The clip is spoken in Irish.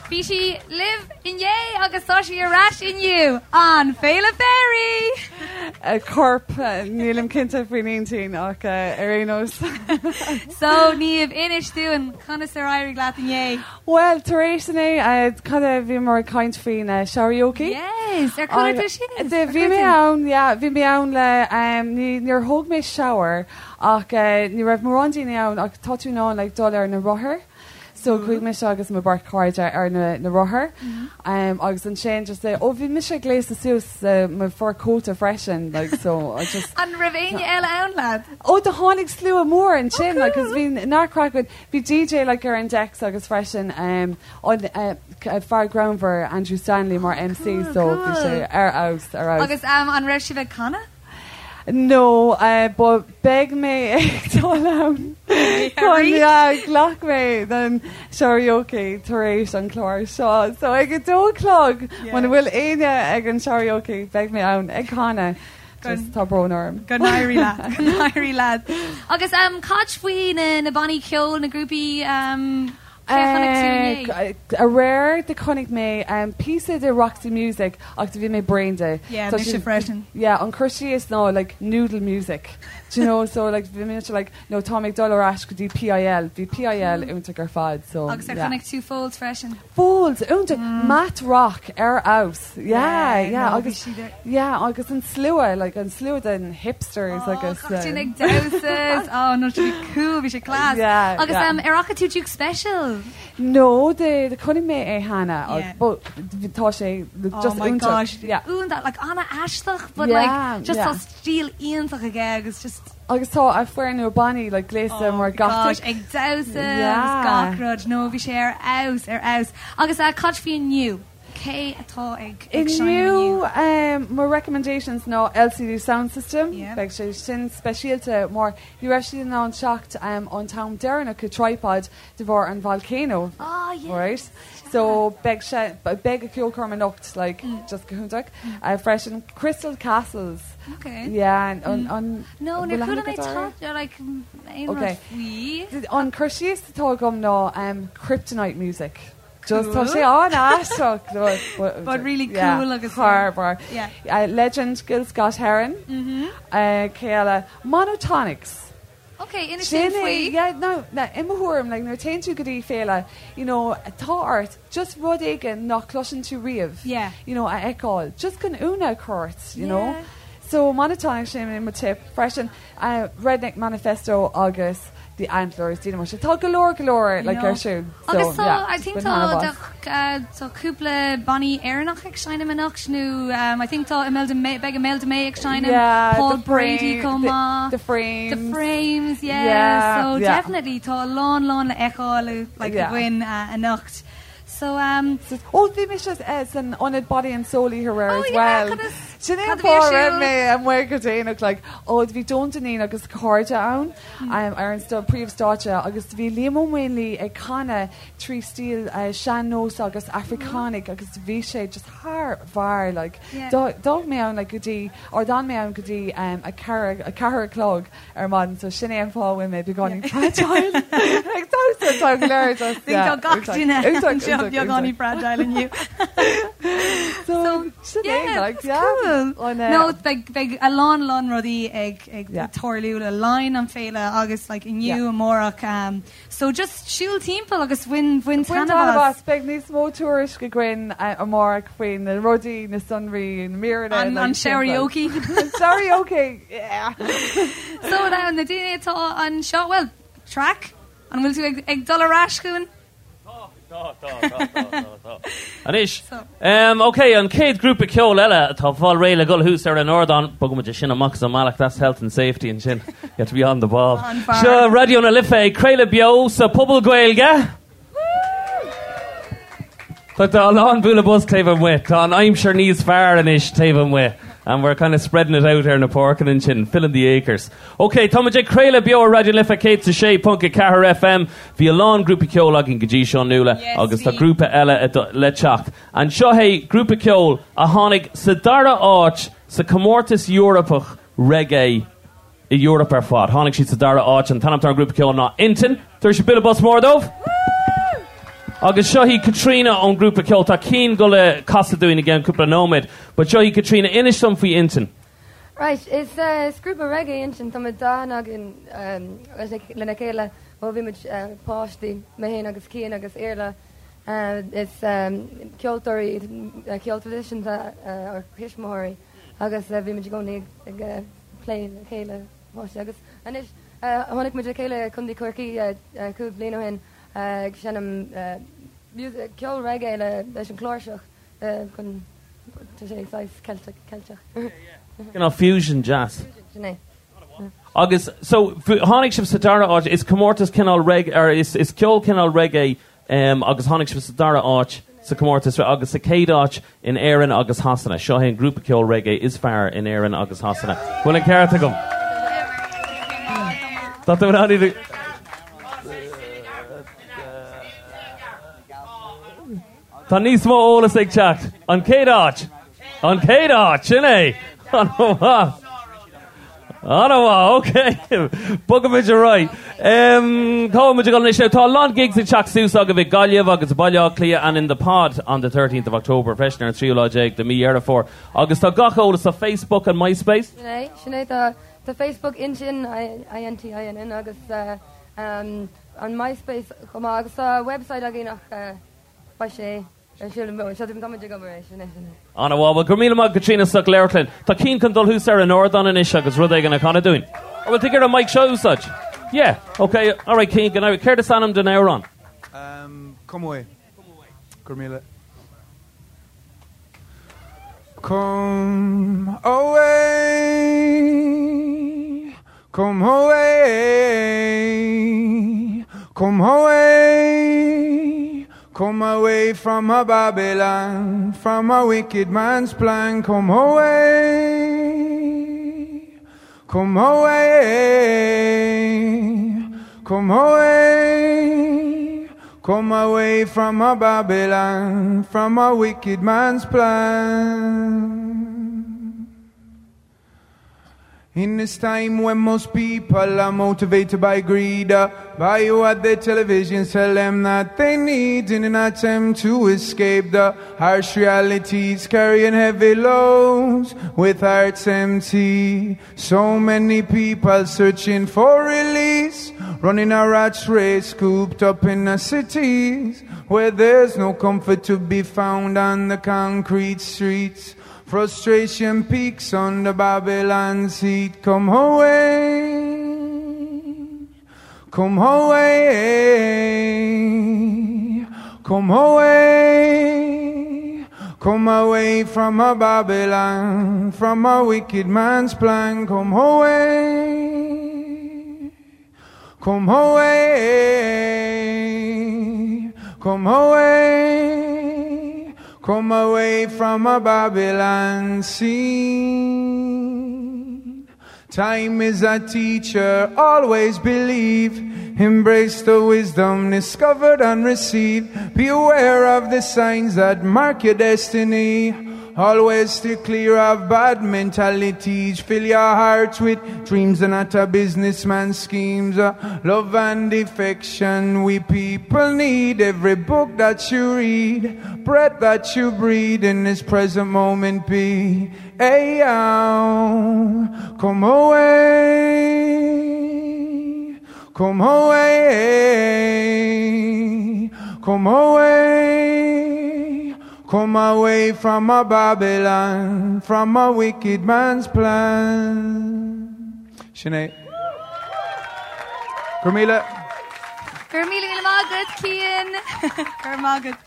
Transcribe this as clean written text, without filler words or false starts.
Bhí sí libh inné agus tá sí ar ais inniu, an Féile Fairy! Corp, nílim cinnte faoin intinn ach ar aon nós. So, Niamh, inis dúinn conas ar éirigh leat inné? Bhuel, tar éis inné, cad é, bhíomar ag caint faoin Sharaoke. Yes! Ar chuala tú sin? Bhí mé ann, yeah, bhí mé ann le, níor thóg mé shower ach ní raibh mórán daoine ann ach tá tú in ann like dul ar na rothair. So chuaigh mise agus mo bheirt chairde ar na na rothair agus ansin just oh bhí mise gléasta suas sa mo fur cóta freisin like so I just An raibh éinne eile ann leat? Oh do tháinig slua mór ansin like cos bhí neart craic againn. Bhí DJ like ar an decks agus freisin an fear greannmhar Andrew Stanley mar MC so bhí sé ar fheabhas ar fheabhas. Agus an raibh sibh ag canadh? No, but beidh mé ag dul ann chun yeah, ghlac mé don Sharaoke tar éis an clár seo. So ag a dó a chlog, muna bhfuil éinne ag an Sharaoke, beidh mé ann ag canadh. Just tá brón orm. Go n-éirí leat, go n-éirí leat. Agus cad faoi na na bannaí ceoil, na grúpaí Cé a chonaic tú inné? Aréir do chonaic mé píosa de Roxy Music ach do bhí mé bréan de. Yeah, mise freisin. Yeah, an cur síos ná like noodle music. Do you know, so like bhí mise like no tá mé ag dul ar ais go dtí PIL. Bhí PIL iontach ar fad so Agus ar chonaic tú Folds freisin? Folds, iontach! Math rock ar fheabhas. Yeah, yeah agus yeah agus an slua like an slua den hipsters agus. Gach duine ag damhsa. Oh no bhí cool, bhí sé class. Yeah, Agus yeah. ar fhaca tú Duke Special? No, de chonaic mé é cheana but tá sé just Oh my iontach. gosh, Yeah. iontach, like an-aisteach but Yeah, like just yeah. tá stíl iontach aige agus just Agus tá a foireann nua bannaí like gléasta Oh mar my gosh, gothic. ag damhsa agus Yeah. gach rud. No, bhí sé ar fheabhas, ar fheabhas. Agus cad faoi inniu? Cé atá ag ag seinm Inniu inniu? mo recommendations ná LCD Soundsystem. Yeah. Beidh sé sin speisialta mar ní raibh siad in ann teacht an t-am deireanach go Tripod de bharr an volcano. Ah, yeah. Right? So beidh sé beidh a ceolchoirm anocht like just go hiontach. Freisin Crystal Castles. Okay. Yeah, an an No, bhfuil níor chuala aithne mé agat orthu? tá like aon rud Okay. faoi. An cur síos atá agam ná Kryptonite music. Just tá Cool. sé an-aisteach but but But really yeah, cool agus thar barr. yeah. Legend Gil Scott Heron. Cé eile? Monotonix. Ok, inis Sin dúinn é, faoi. yeah, no, no, i mo thuairim, like, nuair a téann tú go dtí féile, you know, tá ort just rud éigin nach cloiseann tú riamh, Yeah. you know, a fheiceáil, just chun ionadh a chur ort, you know. Yeah. So Monotonix sin é mo tip freisin, Redneck Manifesto agus The Antlers, daoine mar sin. Tá go leor, go leor, like, ar siúl. Agus So, tá, yeah, I think bain tá, taitneamh as. tá cúpla bannaí Éireannach ag seinm anocht nó I think tá Imelda May, beidh Imelda May ag seinm, Yeah, Paul the Brady Frame, chomh the, maith. the Frames. The Frames, yeah. Yeah, So yeah. definitely tá a lán lán le feiceáil like Yeah. againn anocht. So um, So, oh, bhí mise san ionad Body and Soul oíche aréir Oh as yeah, well. cad is- Sin é cad an a bhí ar fáth a raibh siúl? mé amuigh go déanach, like, oh, bhí Joan Dineen agus cairde ann ar an príomhstáitse agus bhí Liam Ó Maonlaí ag canadh trí stíl sean-nós agus Afracánach agus bhí sé just thar bharr like. Yeah. D'fhág mé ann like go dtí, or d'fhan mé ann go dtí a ceathair, a ceathair a chlog ar maidin so sin é an fáth a bhfuil mé beagáinín fragile. Like damhsa tá go léir just Think yeah, tá gach iontach, duine iontach, anseo iontach, beagáinín iontach. fragile inniu. So sin é Yeah, like that's yeah. cool. An, No, beidh beidh a lán lán rudaí ag ag Yeah. tarlú le linn an féile agus like inniu Yeah. amárach um, So just siúil timpeall agus bain bain Bain taitneamh taitneamh as. as. Beidh níos mó tuairisc againn amárach faoi na rudaí, na sonraí, na míreanna. An an Sharaoke. An Sharaoke, yeah! So now na daoine atá anseo, bhuel, Traic, an bhfuil tú ag ag dul ar ais chugainn? Tá, tá, tá, tá, tá, tá. Anois, ok, an chéad grúpa ceoil eile atá ag fáil réidh le dhul thuas ar an ardán, bogfaidh muid é sin amach as an mbealach, that's health and safety ansin, you have to be on the ball. Seo Raidió na Life ag craoladh beo sa Phuball Gaeilge. Tá a lán bualadh bos taobh amuigh, tá an aimsir níos fearr anois taobh amuigh and we're kind of spreading it out ar na páirceanna ansin, filling the acres. Ok, tá muid ag craoladh beo ar Raidió na Life 106.4 FM. Bhí a lán grúpaí ceoil againn go dtí seo, Nuala, Yes, agus tá bhí. grúpa eile le teacht. Anseo é grúpa ceoil a tháinig sa dara áit sa comórtas Eorpach reggae i Eoraip ar fad. Tháinig siad sa dara áit. An t-ainm atá ar an grúpa ceoil ná Intinn. Tabhair bualadh bos mór dóibh! Agus seo í Caitríona ón grúpa ceoil. Tá Cian ag dul a casadh dúinn i gceann cúpla nóiméad. But seo í Caitríona, inis dom faoi Intinn. Right, is grúpa reggae Intinn, tá muid aithne againn lena chéile ó bhí muid páistí, mé féin agus Cian agus Iarla. Is ceoltóirí ceol traidisiúnta ár thuismitheoirí agus bhí muid i gcónaí ag plé le chéile páistí agus anois tháinig muid le chéile i Contae Chorcaí 5 bliain ó shin ag seinm ceol reggae leis an chláirseach chun tá sé saghas Ceilteach Ceilteach. Cineál fusion jazz. Sin é. Agus so tháinig sibh sa dara áit, is comórtas cineál reggae, or is is ceol cineál reggae um, agus tháinig sibh sa dara áit sa comórtas agus sa chéad áit in Éirinn agus Shasana. Seo é an grúpa ceol reggae is fearr in Éirinn agus Shasana. Bhfuil an ceart agam? Tá tú in ann iad Tá níos mó eolas ag teacht. An chéad áit! An chéad áit! Sin é! An-mhaith! An-mhaith, ok. Bogfaimid ar aghaidh. Cá bhfuil muid ag dul anois? Tá a lán gigs ag teacht suas agaibh i Gaillimh agus i Baile Átha Cliath and in the pod on the 13th of October freisin ar an tríú lá déag de mí Dheireadh Fómhair. Agus tá gach eolas ar Facebook and MySpace. Sin é, sin é. Tá tá Facebook Intinn, I-N-T-I-N-N, agus an MySpace chomh maith. Agus tá website againn ach beidh sé ar siúl seo tá muid ag obair air sin é sin é. An-mhaith, bhuel go raibh míle maith Caitríona Soc Leirclinn. Tá Cian chun dul thuas ar an ardán anois agus rud éigin a chanadh dúinn. Or bhfuil tú ag iarraidh an mic seo a úsáid? Yeah, ok, alright Cian, go n-éirí. Céard is ainm don amhrán? Um, Come Away. Go raibh míle. Come away, come away, come away, come away from a Babylon, from a wicked man's plan. Come away, come away, come away, come away from a Babylon, from a wicked man's plan. In this time when most people are motivated by greed, uh, by what the television tell them that they need in an attempt to escape the harsh realities, carrying heavy loads with hearts empty. So many people searching for release, running a rat's race, cooped up in the cities where there's no comfort to be found on the concrete streets. Frustration peaks on the Babylon seat. Come away, come away, come away, come away from a Babylon, from a wicked man's plan. Come away, come away, come away, come away from a Babylon scene. Time is a teacher, always believe. Embrace the wisdom discovered and received. Be aware of the signs that mark your destiny. Always stay clear of bad mentalities. Fill your heart with dreams and not a businessman's schemes. Uh, love and affection we people need. Every book that you read, breath that you breathe in this present moment be. Hey, come away, come away, come away, come away from a Babylon, from a wicked man's plan. Sinead. Go raibh míle. Go raibh míle míle maith agat, Cian. Go raibh maith agat.